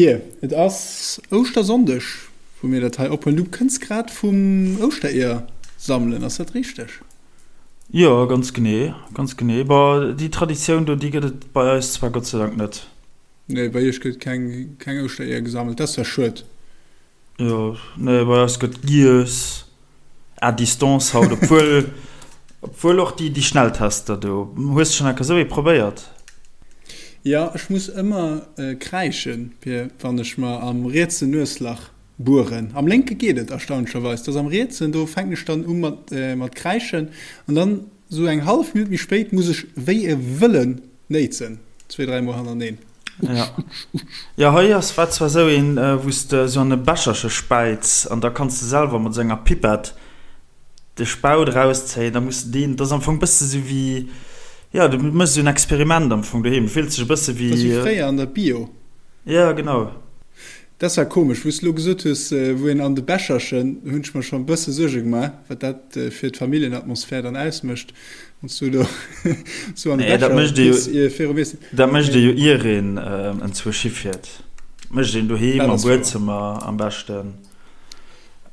Pir, et ass Ouschtersonndeg, wou mir dat hei ophuelen. Du kënns grad vum Ouschtereeër sammelen, ass dat richteg? Jo, ganz genee, ganz genee. Bon, déi Traditioun do, déi gëtt et bei eis zwar Gott sei Dank net. Nee, bei iech gëtt keng, keng Ouschtereeër gesammelt, dat ass zwar schued. Jo, nee, bei eis gëtt giess à distance haut, obwuel, obwuel och déi, déi Schnelltester do. Hues de schonn enker esou ee probéiert? Jo, ech muss ëmmer kräischen, fir wann ech mer am rietsen Nueslach bueren. Am lénke geet et erstaunlecherweis, dass am rietsen, do fänken ech dann u mat, mat kräischen an dann esou eng hallef Minutt méi spéit muss ech wéi e Wëllen néitsen, zwéi, dräi Mol hannerteneen. Ja. Jo, hei ass, war zwar esou een, wou s de esou an e Becherche späiz an da kanns de selwer mat esou enger Pipette de Spaut erauszéien, da muss de deen, dat ass am Fong e bësse sou wéi, jo, du méchs esou en Experiment am Fong doheem, du fills dech e bësse wéi. Dat ass wéi fréier an der Bio. Ja, genau. Dat war komesch, wou s de lo gesot hues, wou een an de Becherchen, hunn ech mer schonn e bësse Suerge gemaach, wat dat fir d'Familljenatmosphär dann ausmécht, wann s du do sou an de Nee, dat Becher mécht ee jo, piss ier virum Iessen. dat mécht ee jo ier een enzwousch hifiert. Dat mécht een doheem Dat am ass wouer. Buedzëmmer am beschten.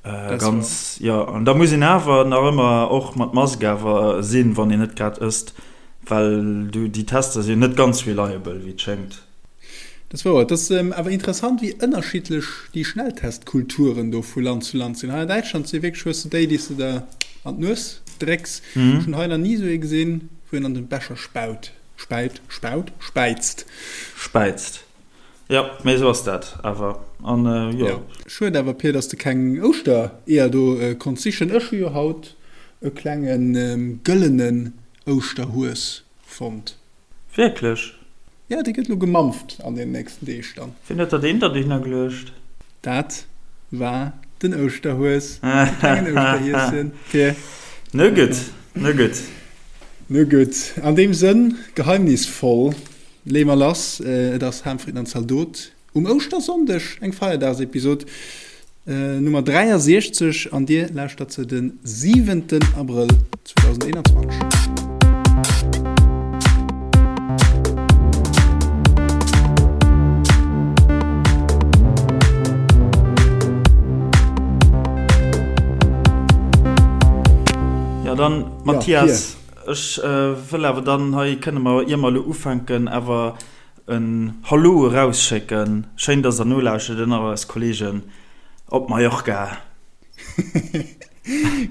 Dat ass wouer. Ganz, jo. An da muss een awer nach ëmmer och mat Mask awer sinn, wann een net grad ësst, well du, déi Tester sinn net ganz reliable, wéi et schéngt. Dat ass wouer. Et ass awer interessant, wéi ënnerschiddlech déi Schnelltestkulturen do vu Land zu Land sinn. Hei an Däitschland si wierklech, hues de déi, déi s de der an d'Nues drécks. Ech hunn hei nach ni esou ee gesinn, wou een an de Becher spaut, späit, spaut, späizt. Späizt, jo, mee esou ass dat awer. An jo. Jo. Schued awer, Pir, dass de keng Ouschtereeër do konns sichen. Ech hu jo haut e klenge gëllenen Ouschterhues fonnt. Wierklech? Jo, dee gëtt elo gemampft an den nächsten Deeg dann. Wien huet der deen da dohinner geluecht? Dat war den Ouschterhues, de klengen Ouschterhieschen, fir. No gutt, no gutt. No gutt, an deem Sënn, geheimnisvoll, leeë mer lass. Et ass Ham, Fritten an Zaldot. Um Ouschtersonndeg eng Feierdagsepisod Nummer 63 an dir lauschtert se de siwenten Abrëll 2021. Jo dann Mathias, ech wëll awer dann hei kënne mer, ier mer elo ufänken, awer En Hallo erausschécken. Schéin dass der nolauschtert un all eis Kollegen op Mallorca.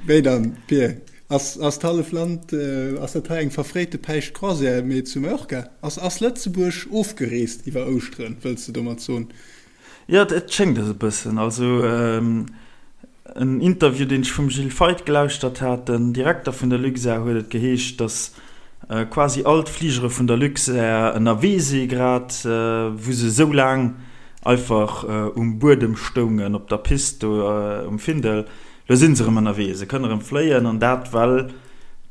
Wéi dann, Pir? Ass ass d'hallef Land, ass dat hei eng verfréite Päischt-Croisière, mee zu Mallorca? Ass ass Lëtzebuerg ofgereest iwwer Ouschteren, wëlls de domat soen? Jo, et schéngt es e bëssen. Also en Interview, deen ech vum Gilles Feith gelauschtert hat, den Direkter vun der Luxair, huet et geheescht, datt quasi all d'Fligere vun der Luxair ënnerwee si grad, wou se esou laang einfach um Buedem stoungen, op der Pist do um Findel. Lo si se erëm ënnerwee, se kënne erëm fléien, an dat well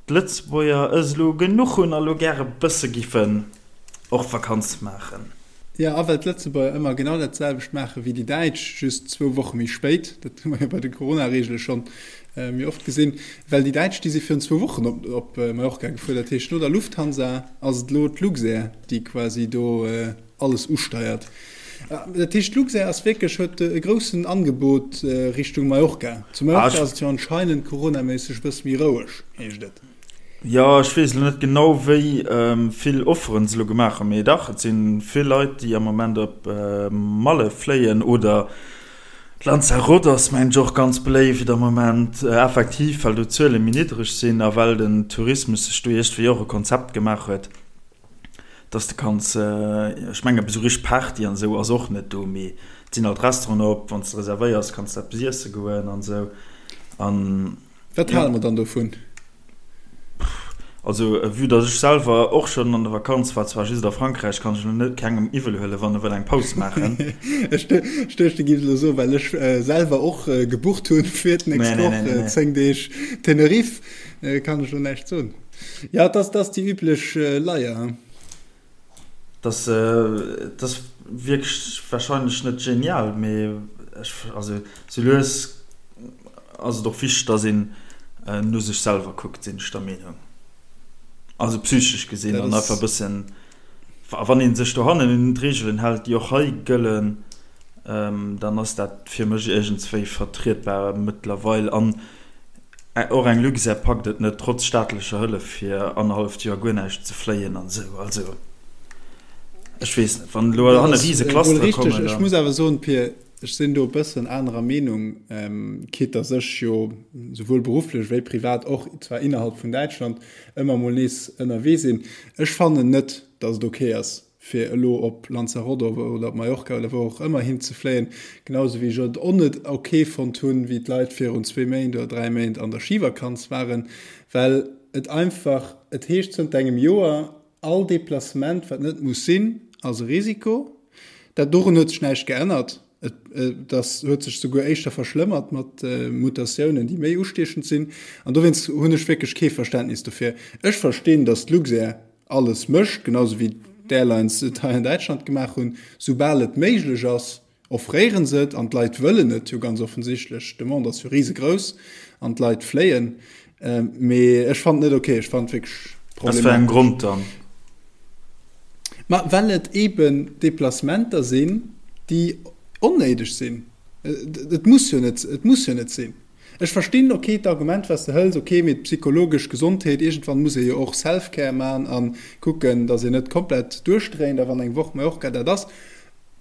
d'Lëtzebuerger es elo genuch hunn a lo gäre bësse giffen och Vakanz maachen. Jo, a well d'Lëtzebuerger ëmmer genau dat selwecht maache wéi déi Däitsch, just zwou Woche méi spéit, dat hu mer jo bei de Corona-Reegele schonn méi oft gesinn, well déi Däitsch, déi si virun zwou Wochen op op Mallorca gefuer, dat heescht no der Lufthansa ass et elo d'Luxair, déi quasi do alles usteiert. Dat heescht d'Luxair ass wierklech, huet e groussen Angebot Richtung Mallorca. Zu Mallorca ass et jo anscheinend coronaméisseg e bësse méi roueg, heescht et. Jo, ech weess elo net genau wéi vill Offeren se elo gemaach hunn, mee dach, et si vill Leit, déi am Moment op Malle fléien oder Lanzarote ass mengen ech och ganz beléift am Moment, effektiv well do d'Zuele méi niddreg sinn a well den Tourismus sech do iergendwéi och e Konzept gemaach huet, dass de kanns, ech mengen esou richteg Party an esou ass och net do, mee et sinn alt Restauranten op, wann s de reservéiers kanns de eppes iesse goen an esou an. Wat hale mer dann dovun? Also vue dass ech selwer och schonn an der Vakanz war, zwar just a Frankräich, kann ech elo net kengem iwwel huelen, wann e wëll eng Paus maachen. Ech duecht, du giffs elo soen, well ech selwer och gebucht hunn fir d'nächst Woch 10 Deeg Tenerife, kann ech elo näischt soen. Jo, et ass déi üblech Leier. Dass ass wierklech wahrscheinlech net genial, mee ech, also sou lues ass et och wichteg, dass een no sech selwer kuckt, sinn ech der Meenung. Also psychesch gesinn an einfach e bëssen, a wann ee sech dohannen un d'Reegelen hält, déi och hei gëllen. Dann ass dat fir mech iergendswéi vertrietbar mëttlerweil. An och eng Luxair packt et net, trotz staatlecher Hëllef, fir annerhalleft Joer guer näischt ze fléien an esou. Also, ech weess net, wann elo hanne rise Clustere kommen, dann. Ech muss awer soen, Pir, ech sinn do e bëssen anerer Meenung, quitte dass ech jo souwuel berufflech wéi privat och zwar innerhalb vun Däitschland ëmmer mol nees ënnerwee sinn. Ech fannen net, dass et ok ass, fir elo op Lanzarote oder op Mallorca oder wou och ëmmer hin ze fléien, genau sou wéi ech et och net ok fonnt hunn, wéi d'Leit virun zwee Méint oder 3 Méint an der Schivakanz waren, well et einfach, et heescht zënter engem Joer, all Deplacement wat net muss sinn, ass e Risiko. Dat dorun huet sech näischt geännert, et ass, huet sech souguer éischter verschlëmmert mat Mutatiounen, déi méi ustiechend sinn. An dowéinst hunn ech wierklech kee Verständnis dofir. Ech verstinn, datt d'Luxair alles mécht, genau sou wéi d'Airlines et hei an Däitschland gemaach hunn, soubal et méiglech ass, offréiere se et an d'Leit wëllen et jo ganz offensichtlech. D'Demande ass jo risegrouss an d'Leit fléien. Mee ech fannen et net ok, ech fannen et wierklech Aus wéi engem problematesch. Grond dann? Ma well et eeben Deplacementer sinn, déi onnéideg sinn. Et muss jo net, et muss jo net sinn. Ech verstinn, ok, d'Argument wat s de hëls, ok, mee d'psychologesch Gesondheet, iergendwann muss ee jo och Self-Care man a kucken, datt een net komplett duerchdréint a wann eng Woch Mallorca dat ass,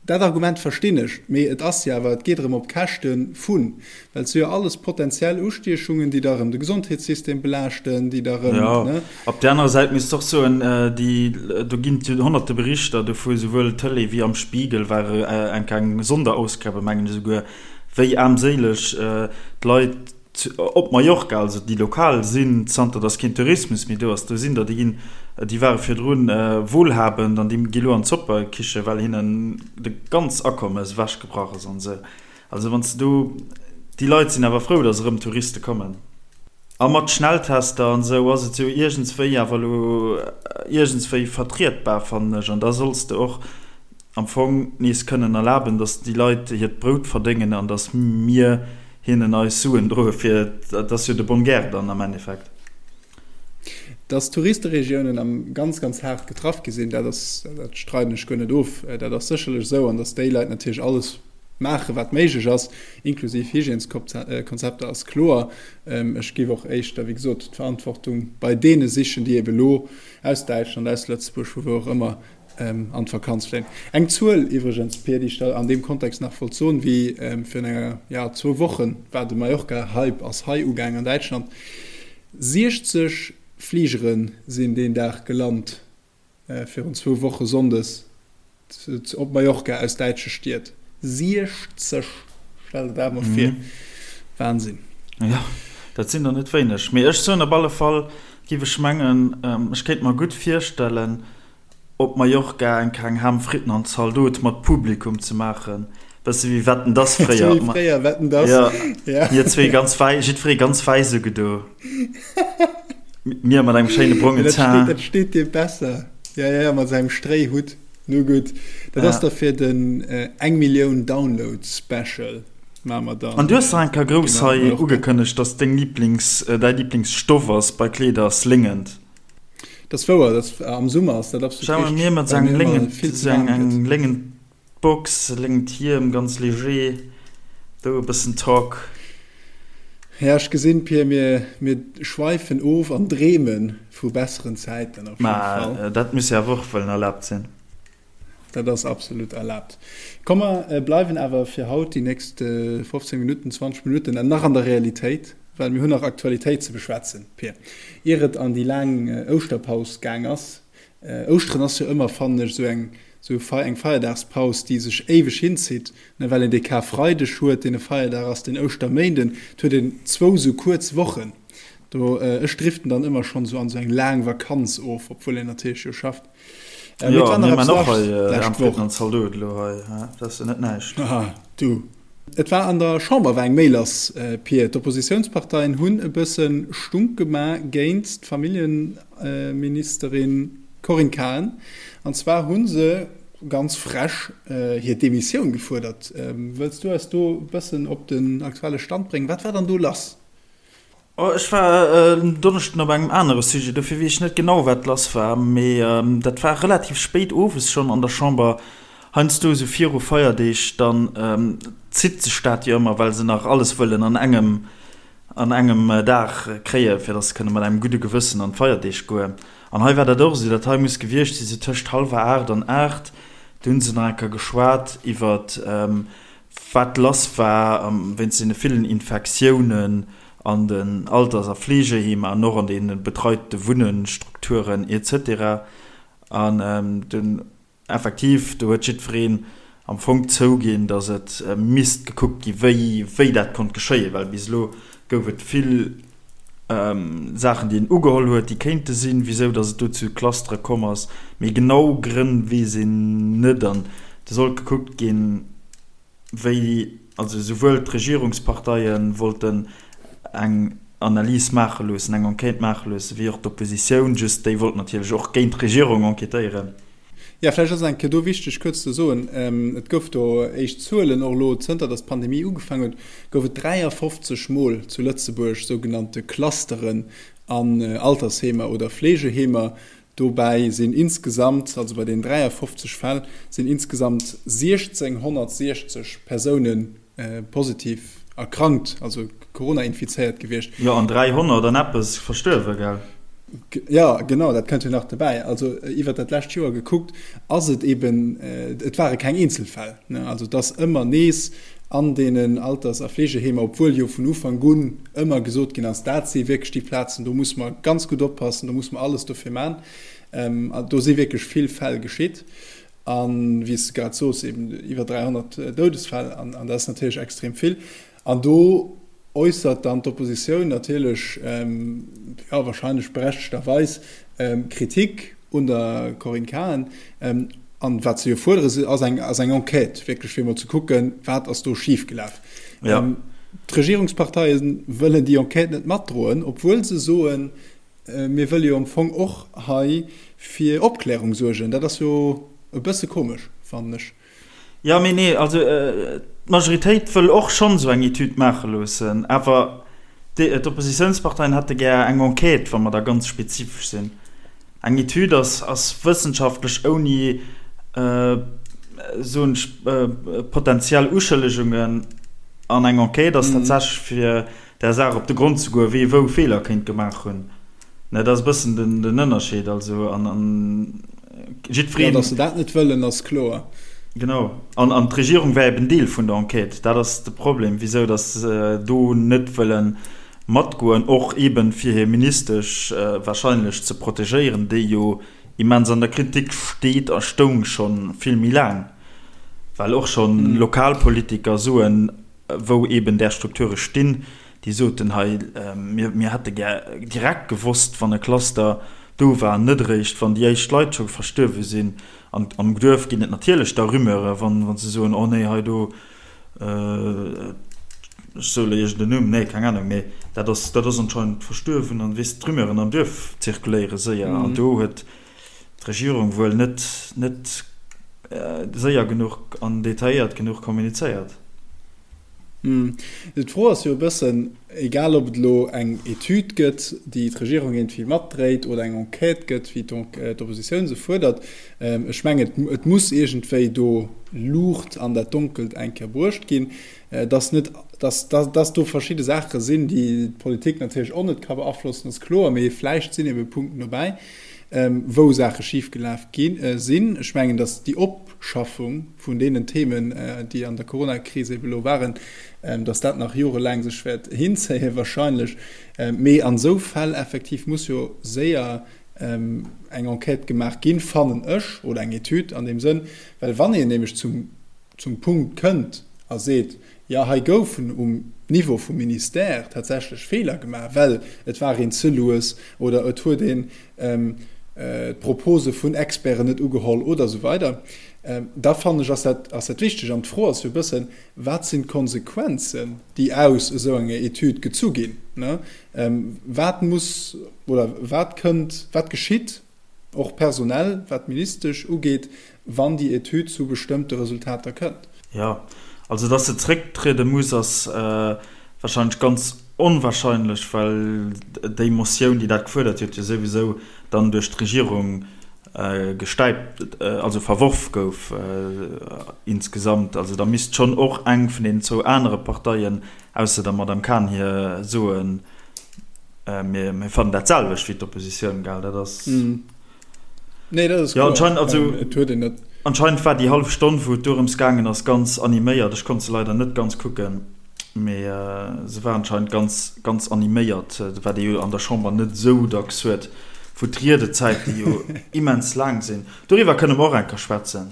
dat Argument verstinn ech, mee et ass jo awer, et geet erëm op Käschte vun, well et si jo alles potentiell Ustiechungen, déi da erëm de Gesondheetssystem belaaschten, déi da erëm, Jo, ne? op där anerer Säit misst s de och soen, déi, do ginn et jo honnerte Berichter dovu, souwuel Tëlee wéi am Spiegel war eng kleng Sonderausgabe, mengen ech esouguer, wéi aarmséileg d'Leit op Mallorca, also déi lokal sinn, zanter datt keen Tourismus méi do ass. Do sinn der, déi ginn, déi ware virdrun wohlhabend an déi gi lo an d'Zoppekiche, well hinnen de ganz Akommes ewechgebrach ass an esou. Also wann s de do, déi Leit sinn awer frou, datt erëm Touriste kommen. A mat Schnelltester an esou ass et jo iergendswéi awer elo iergendswéi vertrietbar, fannen ech. An da solls de och am Fong nees kënnen erlaben, datt déi Leit hiert Brout verdéngen an datt mir hinnen eis Suen droe fir, dat ass jo de bonne guerre dann am Endeffekt. Datt d'Touristeregiounen am ganz, ganz haart getraff gi sinn, dat ass, dat streiden ech guer net of, dat ass sécherlech esou an datt déi Leit natierlech alles maachen, wat méiglech ass, inklusiv Hygièneskonzepter, ass kloer. Ech géif och éischter, wéi gesot, d'Verantwortung bei deene sichen, déi ebe lo aus Däitschland, aus Lëtzebuerg, vu wou och ëmmer, an d'Vakanz fléien. Eng Zuel iwwregens, Pir, déi ech der an deem Kontext nach wollt soen, wéi virun enger, ja, zwou Wochen war de Mallorca-Hype ass hei ugaang an Däitschland. 60 Fligere sinn deen Dag gelant, virun zwou Woche sonndes op Mallorca aus däitsche Stied. 60! Stell der dat emol vir. Wahnsinn. Jo, dat sinn der net wéineg. Mee ech soen op alle Fall, giff ech mengen, ech kéint mer gutt virstellen, op Mallorca eng kleng Ham, Fritten an Zaldot mat Publikum ze maachen, bësse wéi Wetten dass fréier. Wéi fréier Wetten dass, ja. Mir zwee ganz wäi, jiddweree ganz wäiss ugedo. Mir mat engem schéine brongen Teint. Dat steet dir besser. Ja, ja, mat sengem Stréihutt. Nu gutt, dat ass da fir den eng Millioun Download Special maache mer dann. An du hues nach eng Kéier grouss hei ugekënnegt, dass deng Lieblings, däi Lieblingsstoff ass bei Kleeder ass Léngent. Dat ass wouer, dat am Summer ass dat absolut Schau richteg, mir mat well sengem mir ëmmer Léngent, vill ze sou eng waarm gëtt. eng léngent Box, léngent Hiem, ganz léger, do e bëssen Talk. Ja, ech gesinn, Pir, mir, mir schweifen of an dreeme vu besseren Zäiten op jidde Mä Fall. dat muss jo awer och wëllen erlaabt sinn. Dat ass absolut erlaabt. Komm, mer bleiwen awer fir haut déi nächst 15 Minutten, 20 Minutten nach an der Realitéit, well mir hunn nach Aktualitéit ze beschwätzen, Pir, ier et an déi laang Ouschterpaus gaang ass. Ouschteren ass jo ëmmer, fannen ech, esou eng esou eng Feierdagspaus, déi sech éiweg hinzitt, ne, well een dee Karfreideg huet, deen e Feierdag ass, den Ouschterméinden, et huet een zwou esou kuerz Wochen do. Ech driften dann ëmmer schonn esou an esou eng laang Vakanz of, obwuel een natierlech jo schafft. Äh, jo, mir man och hei äh, am Fritten an Zaldot elo hei, dat ass jo net näischt. Aha, du. Et war an der Chamber war eng Méi lass, äh, Pir. D'Oppositiounsparteien hunn e bësse Stunk gemaach géint d'Familljeministerin Corinne Cahen. An zwar hu se ganz frech äh, hir Demissioun gefuerdert. Ähm, wëlls du eis do e bëssen op den aktuelle Stand bréngen? Wat war dann do lass? Oh, ech war en Donneschden op engem anere Sujet, dofir weess ech net genau, wat lass war. Mee dat war relativ spéit owes schonn an der Chamber. Heiansdo esou viru Feierdeeg, dann zitt sech dat jo ëmmer, well se nach alles wëllen an engem an engem Dag kréien, fir dass se kënne mat engem gudde Gewëssen an d'Feierdeeg goen. An hei war dat och esou, dat hei muss gewiescht si sou tëscht hallwer 8 an 8, do hu se nach eng Kéier geschwat iwwert wat lass war wéinst deene villen Infektiounen an den Alters a Fleegeheemer an och an deene betreite Wunnenstrukturen et cetera. An dunn Effektiv, do huet jiddwereen am Fong zouginn, datt et misst gekuckt gi wéi wéi dat konnt geschéien, well bis elo gouf et vill Saachen, déi een ugeholl huet, déi kéinte sinn, wisou datt et do zu Clustere komm ass, mee genau Grënn weess een net an do sollt gekuckt ginn, wéi also souwuel d'Regierungsparteie wollten eng Analys maache loossen, eng Enquête maache loossen, wéi och d'Oppositioun, just déi wollt natierlech och géint d'Regierung enquêtéieren. Jo, vläicht ass et eng Kéier do wichteg kuerz ze soen, et gouf do éischt Zuelen, och elo zënter datt d'Pandemie ugefaangen huet, gouf et 53 Mol zu Lëtzebuerg sougenannte Clusteren an Altersheemer oder Fleegeheemer. Dobäi sinn insgesamt, also bei den 53 Fäll, sinn insgesamt 1.660 Persoune positiv erkrankt, also Corona-infizéiert gewiescht. Jo, an 300 an eppes verstuerwe, gell? Jo, genau, dat kënnt jo nach dobäi. Also iwwert dat lescht Joer gekuckt, ass et eben, et ware keng Eenzelfäll, ne? Also et ass ëmmer nees an deenen Alters a Fleegeheemer, obwuel jo vun Ufank un ëmmer gesot ginn ass, dat si wierklech déi Plazen, do musse mer ganz gutt oppassen, do musse mer alles dofir man. Do si wierklech vill Fäll geschitt. A wéi s de grad sos, eben iwwer 300 Doudesfäll, an dat ass natierlech extrem vill. An do äussert dann d'Oppositioun natierlech, jo, wahrscheinlech berechtegterweis, Kritik un der Corinne Cahen. An wat se jo fuerdere ass eng, ass eng Enquête, wierklech fir emol ze kucken, wat ass do schifgelaf. Ja. D'Regierungsparteie wëllen déi Enquête net matdroen, obwuel se soen, mir wëlle jo am Fong och hei fir Opklärung suergen. Dat ass jo e bësse komesch, fannen ech. Jo, mee nee, also d'Majoritéit wëll och schonn esou eng Etüd maache loossen, awer d'Oppositiounsparteien hätte gär eng Enquête, wa mer da ganz spezifesch sinn. Eng Etüd ass, ass wëssenschaftlech ouni, soen ech, potenziell Uschëllegungen, an eng Enquête ass tatsächlech fir der Saach op de Grond ze goen, wee wou Feeler kéint gemaach hunn. Ne, dat ass e bëssen den, den Ënnerscheed. Also, an, an jiddwereen. Jo, datt se dat net wëllen, ass kloer. Genau. An, an d'Regierung war eben Deel vun der Enquête. Dat ass de Problem, wisou datt se do net wëlle matgoen, och eben fir hir Ministesch wahrscheinlech ze protegéieren, déi jo immens an der Kritik steet a stoung scho vill méi laang, well och scho Lokalpolitiker soen, wou eben där Strukture stinn, déi soten, hei, mir hätte gär direkt gewosst, wann e Cluster do war, net eréischt, wann déi éischt Leit scho verstuerwe sinn. An am Duerf ginn et natierlech da Rumeure, wa se soen, oh nee, hei do, ech soe elo iergend en Numm, nee, keng Anung, mee dat ass, dat ass anscheinend verstuerwen. An weess, d'Rumeuren am Duerf zirkuléiere séier. An do huet d'Regierung wuel net, net séier genuch an detailléiert genuch kommunizéiert. D'Fro ass jo e bëssen, egal ob et elo eng Etüd gëtt, déi d'Regierung iergendwéi matdréit, oder eng Enquête gëtt, wéi d'Oppositioun se fuerdert, ech mengen, et muss iergendwéi do Luucht an dat Donkelt eng Kéier bruecht ginn, dass net, dass, dass do verschidde Saache sinn, déi d'Politik natierlech och net ka beaflossen, ass kloer, mee vläicht sinn ebe Punkten dobäi, wou Saache schifgelaf gi sinn. Ech mengen, dass déi Opschaffung vun deenen Themen, déi an der Coronakris ebe lo waren, dass dat nach jorelaang sech wäert hinzéien wahrscheinlech. Mee an esou Fäll effektiv muss jo séier eng Enquête gemaach ginn, fannen ech, oder eng Etüd an deem Sënn, well wann een nämlech zum zum Punkt kënnt a seet, jo hei goufen um Niveau vum Ministère tatsächlech Feeler gemaach, well et war een ze lues oder et huet een d'Propose vun Experten net ugeholl oder esou weider, da fannen ech, ass dat, ass dat wichteg. An d'Fro ass jo e bëssen, Wat sinn d'Konsequenzen, déi aus esou enger Etüd gezu ginn? Wat muss oder wat kënnt, wat geschitt och personell, wat d'Ministesch ugeet, wann déi Etüd zu bestëmmte Resultater kënnt? Jo, also datt se zrécktriede muss, ass wahrscheinlech ganz onwahrscheinlech, well déi Motioun, déi dat gefuerdert huet, jo souwisou dann duerch d'Regierung. gestäipt, also verworf gouf insgesamt. Also da misst schonn och eng vun deenen zwou anere Parteien, ausser der Madame Cahen hir, soen, mir fannen dat selwecht wéi d'Oppositioun, gell? Dat ass. Nee, dat ass kloer. Jo, anscheinend, also anscheinend war déi hallef Stonn, wou et dorëms gaangen ass, ganz animéiert. Ech konnt se leider net ganz kucken. Mee se war anscheinend ganz, ganz animéiert, wat ee jo an der Chamber net esou dacks huet, wou d'Riedezäite jo immens laang sinn. Doriwwer kënne mer och eng Kéier schwätzen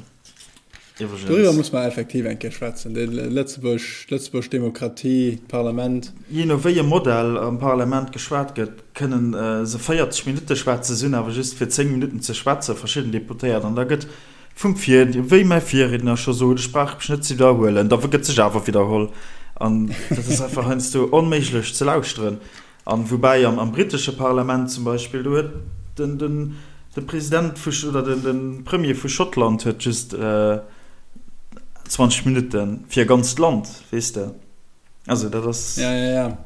iwwregens. Doriwwer muss mer effektiv eng Kéier schwätzen, déi Lëtzebuerg, d'lëtzebuerg Demokratie, d'Parlament. Jee no wéi e Modell am Parlament geschwat gëtt, kënnen se 40 Minutte schwätzen, se hunn awer just fir 10 Minutten ze schwätzen, verschidden Deputéiert, an da gëtt Vum Vir, wéi mäi Virriedner scho sot, ech brauch mech net ze widderhuelen, da gëtt sech awer widderholl an dat ass einfach heiansdo onméiglech ze lauschteren. An woubäi am britesche Parlament zum Beispill, do huet den, den, de President vu, oder den, de Premier vu Schottland huet just 20 Minutte fir e ganzt Land, weess de. Also dat ass. Ja, ja, ja.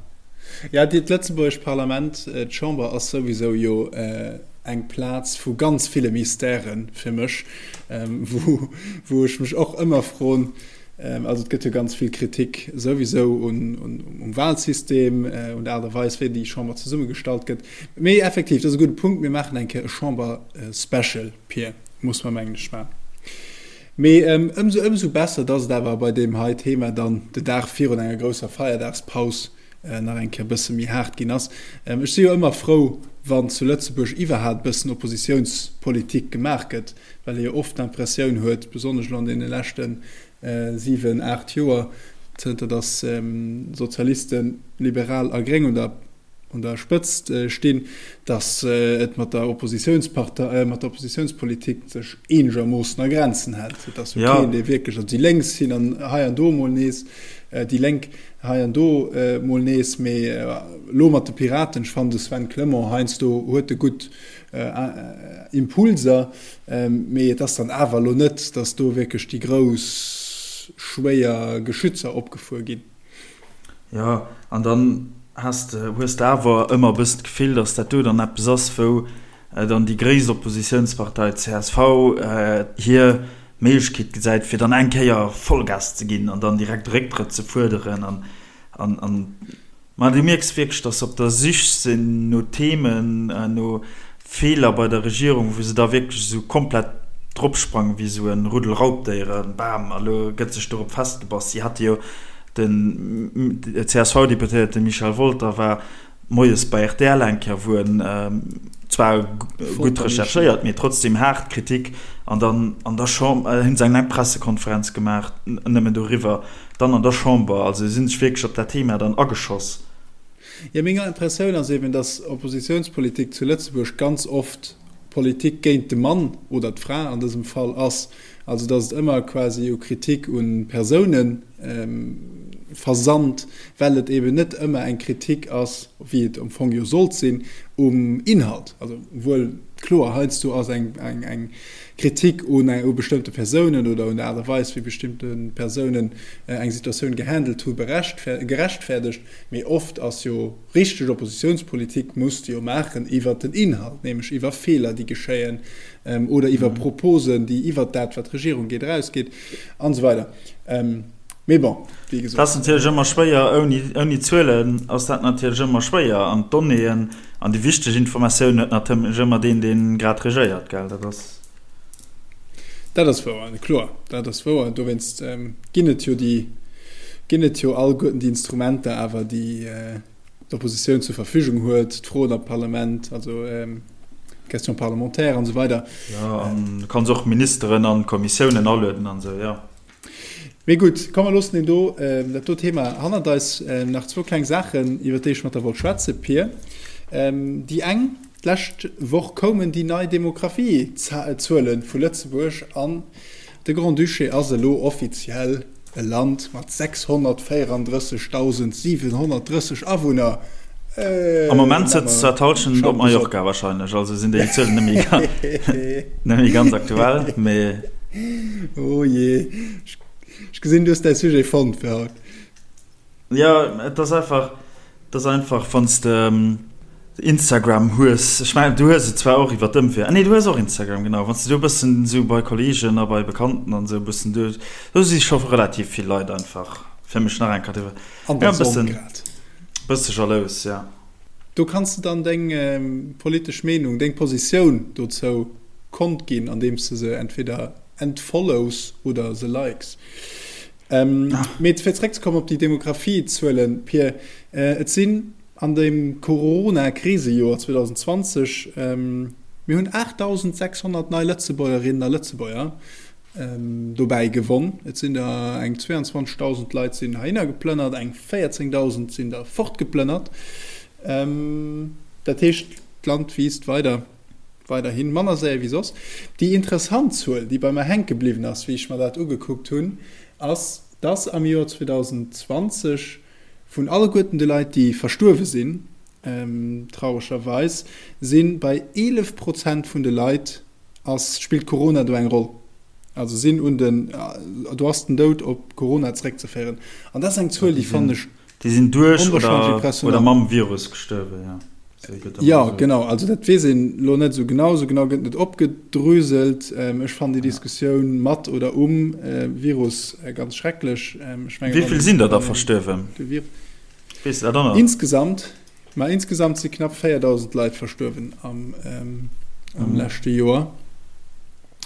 Ja, dat lëtzebuergescht Parlament, d'Chamber ass souwisou jo eng Plaz vu ganz ville Mystèren fir mech, wou, wou ech mech och ëmmer froen, also et gëtt jo ganz vill Kritik souwisou un, un, um Wahlsystem, un der Aart a Weis, wéi déi Chamber zesummegestallt gëtt. Mee effektiv, dat ass e gudde Punkt, mir maachen eng Kéier e Chamber-Special, Pir, muss mer mengen ech maachen. Mee ëmsou ëmsou besser, dass et awer bei deem hei Thema dann de Dag virun enger grousser Feierdagspaus nach eng Kéier e bësse méi haart ginn ass. Ech si jo ëmmer frou, wann zu Lëtzebuerg iwwerhaapt e bëssen Oppositiounspolitik gemaach gëtt, well ee jo oft d'Impressioun huet, besonnesch elo an deene leschte 7, 8 Joer, zënter dass Sozialisten, Liberal a Gréng un der un der Spëtzt stinn, datt et mat der Oppositiounspartei, mat der Oppositiounspolitik sech eenegermoossen a Grenzen hält. Et ass jo keen, dee wierklech, also déi Lénks sinn an hei an do emol nees, déi Lénk hei an do emol nees, mee elo mat de Piraten, ech fannen de Sven Clement heiansdo huet e gutt Impulser, mee et ass dann awer elo net, datt do wierklech déi grouss schwéier Geschützer opgefuer ginn. Jo, an dann has de, hues de awer ëmmer e bëssen d'Gefill, datt dat do dann eppes ass, wou dann déi gréisst Oppositiounspartei, csv, hir Méiglechkeet gesäit, fir dann eng Kéier Vollgas ze ginn an dann direkt e Récktrëtt ze fuerderen an, an, an. Ma du mierks wierklech, datt se op der Sich sinn no Themen, no Feeler bei der Regierung, wou se da wierklech esou komplett dropsprangen, wéi esou e Ruddel Raubdéieren, bam, a lo gëtt sech dorop festgebass. Si hate jo, den CSV-Deputéierte Michel Wolter war moies bei rtl eng Kéier, wou en zwar gutt recherchéiert, mee trotzdem haart Kritik an dann an der Chamber, hunn se eng laang Pressekonferenz gemaach nëmmen doriwwer, dann an der Chamber, also si sinn sech wierklech op dat Thema dann ageschoss. Jo, meng Impressioun ass eben, datt Oppositiounspolitik zu Lëtzebuerg ganz oft Politik géint de Mann oder d'Fra an dësem Fall ass. Also datt et ëmmer quasi u Kritik u Persoune versand, well et eben net ëmmer eng Kritik ass, wéi et am Fong jo sollt sinn, um Inhalt. Also wuel kloer, heiansdo ass eng eng Kritik un u bestëmmte Persounen oder un der Aart a Weis, wéi bestimmte Persounen eng Situatioun gehandelt hu gerechtfäerdegt, mee oft ass jo richteg Oppositiounspolitik muss de jo maachen iwwert den Inhalt, nämlech iwwer Feeler, déi geschéien oder iwwer Proposen, déi iwwert dat, wat d'Regierung geet, erausgeet an esou weider. Mee bon, wéi gesot. Dat ass natierlech ëmmer schwéier, ouni, ouni Zuelen ass dat natierlech ëmmer schwéier. An d'Donnéeën an déi wichteg Informatioun huet natierlech ëmmer deen, dee grad regéiert, gell? Dat ass. Dat ass wouer, kloer, dat ass wouer. Dowéinst ginn et jo déi, ginn et jo alleguerten déi Instrumenter awer, déi d'Oppositioun zur Verfügung huet, d'Froen am Parlament, also d'Questions parlementaires an esou weider. Jo, an du kanns och Ministeren an Kommissiounen alueden an esou, jo. Mee gutt, komm mer loossen deen do, dat do Thema hannert eis. Nach zwou kleng Saachen, iwwer déi ech mat der wollt schwätzen, Pir. Déi eng, D'lescht Woch koumen déi nei Demografiezuele vu Lëtzebuerg an de Grand-Duché ass elo offiziell e Land mat 634.730 Awunner. Am Moment sëtzt zwar d'Hallschent op Mallorca wahrscheinlech, also sinn déi Zuelen net méi ganz aktuell, mee. Oh jee, ech gesinn, du hues däi Sujet fonnt fir haut. Jo, et ass einfach, et ass einfach, wann s de. Instagram hues, ech mengen du hues et zwar och iwwer d'Ëmwee, ah nee du hues och Instagram, genau, wann s de do e bëssen esou bei Kolleegen a bei Bekannten an esou e bëssen do, do si scho relativ vill Leit einfach, fir mech nach eng Kéier, An der Sonn grad. Bësse jalous, ja. Do kanns de dann deng politesch Meenung, deng Positioun dozou kond ginn, andeems de se entweder entfollows oder se likes. Mee fir zeréckzekommen op déi Demografiezuelen, Pir, et sinn an dem Corona-Krisejoer 2020, mir hunn 8.600 nei Lëtzebuergerinnen a Lëtzebuerger dobäi gewonn. Et sinn der eng 22.000 Leit sinn heihinner geplënnert, eng 14.000 sinn der fortgeplënnert. Dat heescht, d'Land wiisst weider, weiderhin manner séier wéi soss. Déi interessant Zuel, déi bei mer hänke bliwwen ass, wéi ech mer dat ugekuckt hunn, ass, dass am Joer 2020 vun alleguerten de Leit, déi verstuerwe sinn, trauregerweis, si bei 11 Prozent vun de Leit ass, spillt Corona do eng Roll. Also sinn un den, do ass den Doud op Corona zeréckzeféieren. An dat ass eng Zuel, déi fannen ech Déi sinn duerch oder mam Virus gestuerwen, jo. Jo, genau. Also dat weess een elo net esou genau. Esou genau gëtt net opgedröselt. Ech fannen déi Diskussioun mat oder um Virus ganz schrecklech. Ech mengen, Wéi vill sinn der da verstuerwen? Weess de dat och nach? Insgesamt? Ma insgesamt si knapp 4.000 Leit verstuerwen am leschte Joer.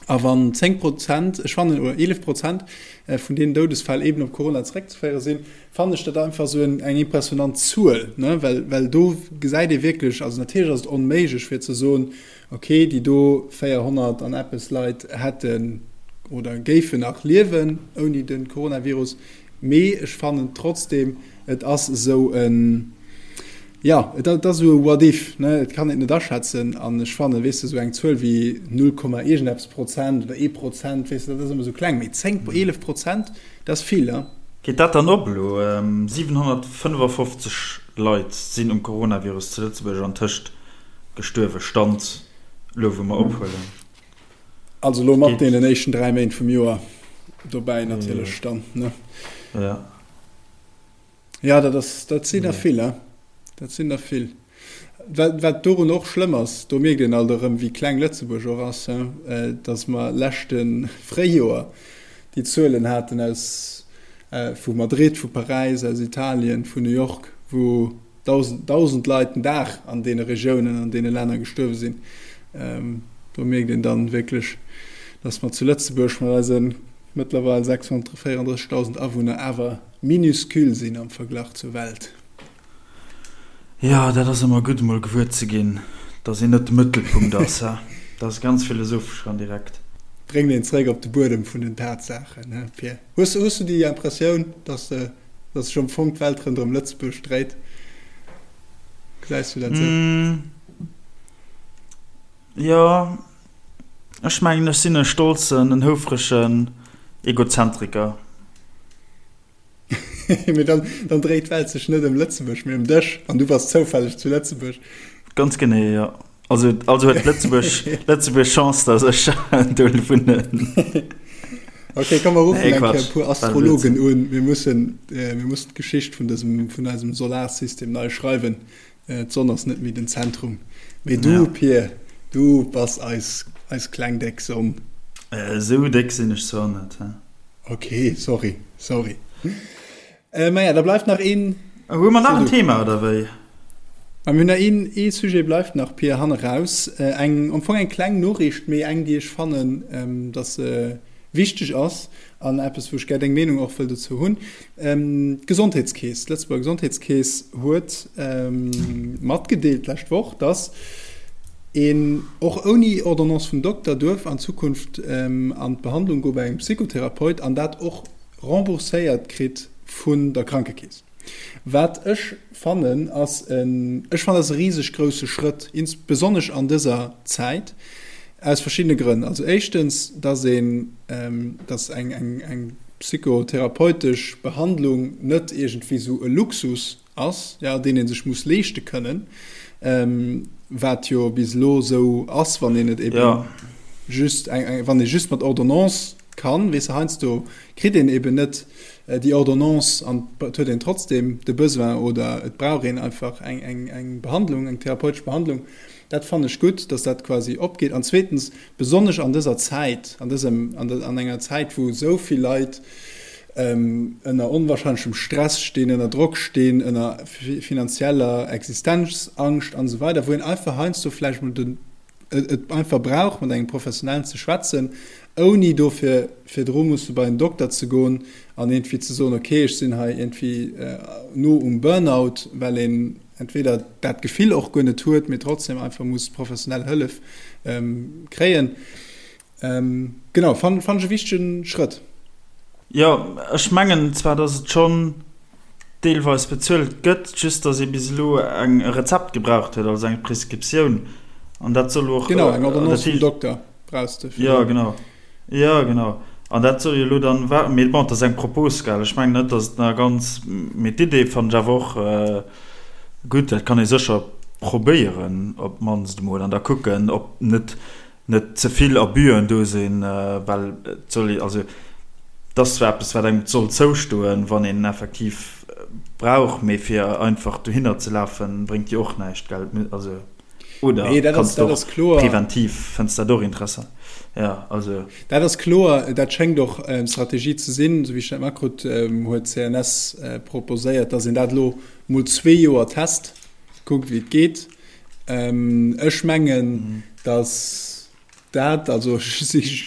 A wann 10 Prozent, ech fannen, oder 11 Prozent vun deenen Doudesfäll eeben op Corona zeréckzeféiere sinn, fannen ech dat einfach esou eng impressionant Zuel, ne, well, well do gesäit ee wierklech, also natierlech ass et onméiglech fir ze soen, okay, déi do 400 an eppes Leit hätten oder géifen nach liewen ouni de Coronavirus, mee ech fannen trotzdem, et ass esou en, jo, et ass esou e What if, ne, et kann een et net aschätzen an ech fannen, weess de, esou eng Zuel wéi null Komma iergendeppes Prozent oder ee Prozent, weess de, dat ass ëmmer esou kleng, mee 10, 11 Prozent, Dat ass vill, he? Geet dat dann op elo? 755 Leit sinn um Coronavirus zu Lëtzebuerg antëscht gestuerwen, Stand elo wou mer ophuelen. Also elo mat deenen éischten 3 Méint vum Joer dobäi natierlech dann, ne? Jo. Jo, dat ass, dat sinn der vill, he? Dat sinn der vill. Wat, wat dorun och schlëmm ass, do mierkt een alt erëm, wéi kleng Lëtzebuerg och ass, he, datt mer leschte Fréijoer déi Zuelen haten aus, vu Madrid, vu Paräis, aus Italien, vun New York, wou 1.000, 1.000 Leit den Dag an deene Regiounen, an deene Länner gestuerwe sinn. Do mierkt een dann wierklech, datt mer zu Lëtzebuerg mat eise mëttlerweil 634.000 Awunner awer minuscule sinn am Verglach zur Welt. Jo, dat ass ëmmer gutt emol gewuer ze ginn, dass een net de Mëttelpunkt ass, he? Dat ass ganz philosophesch an direkt. Bréngt een zeréck op de Buedem vun den Tatsaachen, he Pir? Hues hues du déi Impressioun, dass de, dass sech am Fong d'Welt ronderëm Lëtzebuerg dréit? Gesäis du dat esou? Jo, ech mengen ech sinn e stolzen, en houfregen Egozentriker. Mee dann, dann dréit d'Welt sech net ëm Lëtzebuerg, mee ëm dech. An du bass zoufälleg zu Lëtzebuerg. Ganz genee, jo. Also, also huet Lëtzebuerg, Lëtzebuerg Chance, dass ech do wunnen. Okay, komm, mer ruffen eng Kéier e puer Astrologen un. Mir mussen, mir mussen d'Geschicht vun dësem, vun eisem Solarsystem nei schreiwen. D'Sonn ass net méi den Zentrum. Mee du, ja. Pir, du bass eis, eis kleng déck Sonn. Esou déck sinn ech zwar net, he. Ok, sorry, sorry. Äh, maja, da bleift nach een. Hu mer nach en Thema oder wéi? Ma mir hunn nach een, ee Sujet bleift nach, Pir, hanne raus. Äh, eng, am Fong eng kleng Noriicht, mee eng, déi ech fannen, ähm, dass se wichteg ass an eppes, wou ech gär deng Meenung och wëll dozou hunn. Ähm, d'Gesondheetskeess, d'Lëtzebuerger Gesondheetskeess huet ähm, matgedeelt d'lescht Woch, dass een och ouni Ordonnance vum Dokter duerf an Zukunft an d'Behandlung goe bei engem Psychotherapeut an dat och rembourséiert kritt vun der Krankekeess. Wat ech fannen ass en, ech fannen dat ass e riseg grousse Schrëtt, ins besonnesch an dëser Zäit, aus verschiddene Grënn. Also éischtens, dass een, dass eng, eng, eng psychotherapeutesch Behandlung net iergendwéi esou e Luxus ass, jo, deen ee sech muss leeschte kënnen, wat jo bis elo esou ass, wann een et eben just eng, wann ee just mat Ordonnance. kann, weess de, heiansdo kritt een eben net déi Ordonnance an et huet een trotzdem de Besoin oder et brauch een einfach eng, eng, eng Behandlung, eng therapeutesch Behandlung. Dat fannen ech gutt, dass dat quasi opgeet. An zweetens, besonnesch an dëser Zäit, an dësem, an an enger Zäit, wou esou vill Leit ënner onwahrscheinlechem Stress stinn, ënner Drock stinn, ënner finanzieller Existenzangscht an esou weider, wou een einfach heiansdo vläicht mol den, et einfach brauch, mat engem Professionellen ze schwätzen, ouni dofir virdru musse bei en Dokter ze goen an iergendwéi ze soen, okay, ech sinn hei iergendwéi no um Burnout, well een entweder dat Gefill och guer net huet, mee trotzdem einfach muss professionell Hëllef kréien. Genau, fannen ech e wichtege Schrëtt. Jo, ech mengen zwar, dass et schonn deelweis bezuelt gëtt, just dass ee bis elo eng e Rezept gebraucht huet, also eng Prescriptioun, an dat soll och. Genau, eng Ordonnance vum Dokter brauchs de fir. Jo, genau. Jo, genau. An dat soll jo elo dann, mee bon, et ass eng Propos, gell, ech mengen net, dass et nach ganz, mee d'Idee fannen ech awer och gutt, dat kann ee sécher probéieren op d'mannst emol an da kucken, ob net net ze vill Abüen do sinn, well et soll ee, also et ass zwar eppes, wat engem soll zoustoen, wann een effektiv brauch, mee fir einfach dohinner ze lafen, bréngt jo och näischt, gell? Also, oder Nee, dat ass, kanns de dat och ass kloer. preventiv, fënns dat och interessant? Ja, also. Dat ass kloer, dat schéngt och d'Strategie ze sinn, esou wéi ech dat matkrutt, huet d'CNS proposéiert, datt een dat elo mol zwee Joer test, kuckt wéi et geet. Ech mengen, datt dat, also ech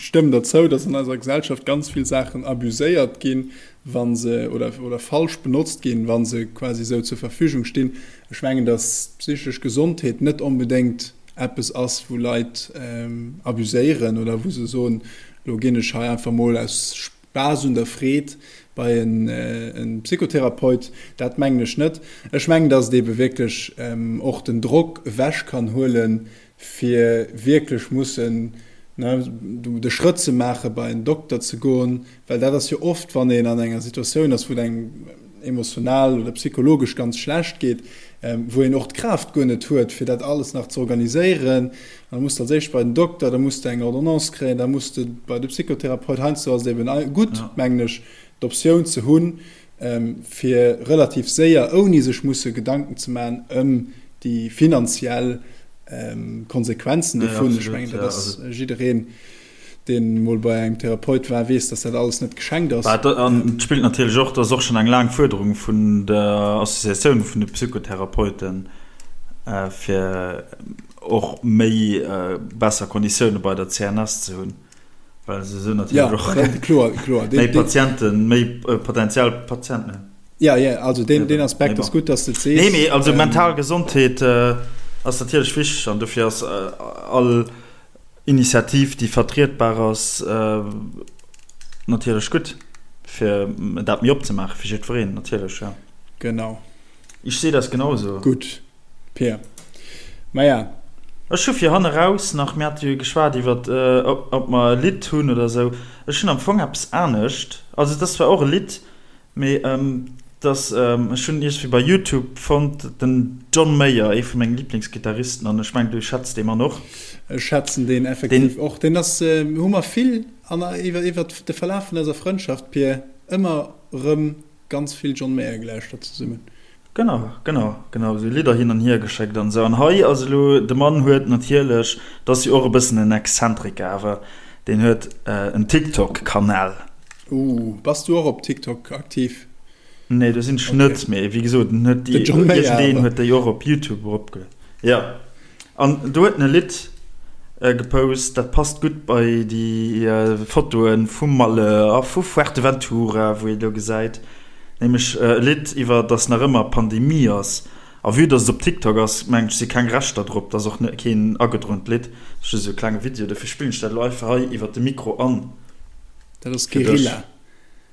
stëmmen der zou, datt an eiser Gesellschaft ganz vill Saachen abuséiert ginn, wa se, oder, oder falsch benotzt ginn, wa se quasi esou zur Verfügung stinn. Ech mengen, datt d'psychesch Gesondheet net onbedéngt eppes ass, wou Leit abuséieren oder wou se soen, elo ginn ech hei einfach mol aus Spaass un der Freed bei en Psychotherapeut, dat mengen ech net. Ech mengen, dass et ebe wierklech och den Drock ewech kann huelen, fir wierklech mussen de Schrëtt ze maachen, bei en Dokter ze goen, well dat ass jo oft, wann een an enger Situatioun ass, wou et engem emotional oder psychologesch ganz schlecht geet, wou een och d'Kraaft guer net huet, fir dat alles nach ze organiséieren. An da muss de als éischt bei den Dokter, da muss de eng Ordonnance kréien, da muss de bei de Psychotherapeut. Heiansdo ass et eben gutt, mengen ech, d'Optioun ze hunn, fir relativ séier, ouni sech musse Gedanken ze maachen ëm déi finanziell Konsequenzen dovun. Ech mengen, dat ass jiddereen, deen mol bei engem Therapeut war, weess, dass dat alles net geschenkt ass. An et spillt natierlech och, dat ass och schonn eng laang Fuerderung vun der Associatioun vun de Psychotherapeuten, fir och méi besser Konditioune bei der CNS ze hunn, well se esou natierlech och méi Patienten, méi potentiell Patienten hunn. Jo, jo, also deen Aspekt ass gutt, dass de et sees. Nee, mee also mental Gesondheet ass natierlech wichteg an dofir ass all Initiativ, déi vertrietbar ass, natierlech gutt, fir dat méi opzemaache fir jiddwereen, natierlech, jo. Genau. Ich sehe das genauso. Gutt, Peer. Maja. Ech hu fir hanne raus nach, mir hate jo geschwat iwwer, ob mer e Lidd hunn oder esou. Ech hunn am Fong eppes anescht. Also et ass zwar och e Lidd, Mee dass, ech hunn iergendwéi bei Youtube fonnt, den John Mayer, ee vu menge Liblingsgittaristen, an ech mengen du schätz dee Mann och. Ech schätzen deen effektiv och. Deen ass, hu mer vill an iwwer iwwer de Verlaf vun eiser Frëndschaft, Pir, ëmmer erëm ganz vill John Mayer gelauschtert zesummen. Genau, genau, genau, esou Lidder hin an hier geschéckt an esou. An hei ass elo, de Mann huet natierlech, dat ass jo och e bëssen en Exzentriker awer, deen huet en TikTok-Kanal. Ooh, bass du och op TikTok aktiv? Nee, do sinn ech net, mee wéi gesot, en huet déi, iergendeen huet déi och op YouTube eropgelueden. Jo, an do huet en e Lidd gepost, dat passt gutt bei déi Fotoe vu Malle a vu Fuerteventura, wou ee do gesäit, nämlech e Lidd iwwer, dass nach ëmmer Pandemie ass. A vue dass et op TikTok ass, mengen ech, si keng Rechter drop, dat ass och keen agedroent Lidd, dat ass just esou e klenge Video, dofir spillen ech dat elo einfach hei iwwer de Mikro an. Dat ass Guerilla.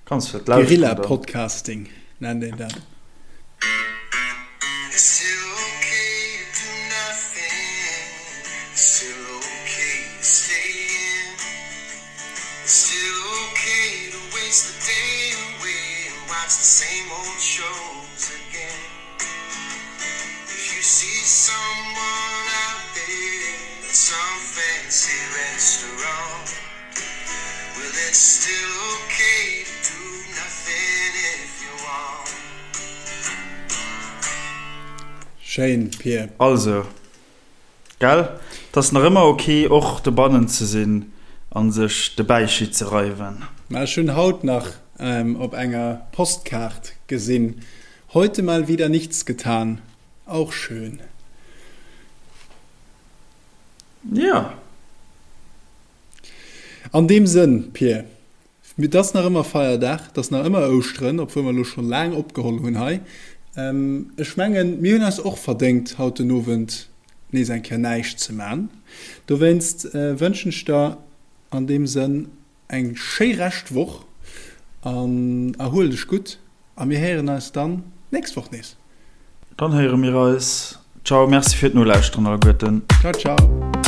Kanns du dat lauschteren dann? Guerilla Podcasting nennt een dat. still okay to do nothing if you want. Schéin, Pir. Also, gell? 't ass nach ëmmer ok och dobannen ze sinn an sech de Bäichi ze reiwen. Mä ech hunn haut nach op enger Postkaart gesinn, Heute mal wieder nichts getan. Auch schön. Jo. An deem Sënn, Pir, et ass nach ëmmer Feierdag, et ass nach ëmmer Ouschteren, obwuel mer elo scho laang opgeholl hunn hei. Ech mengen, mir hunn eis och verdéngt, haut den Owend nees eng Kéier näischt ze man. Dowéinst wënschen ech der an deem Sënn eng schéi Rescht Woch an erhuel dech gutt a mir héieren eis dann d'nächst Woch nees. Dann héiere mir eis. Ciao, merci fir d'Nolauschteren alleguerten. Ciao, ciao.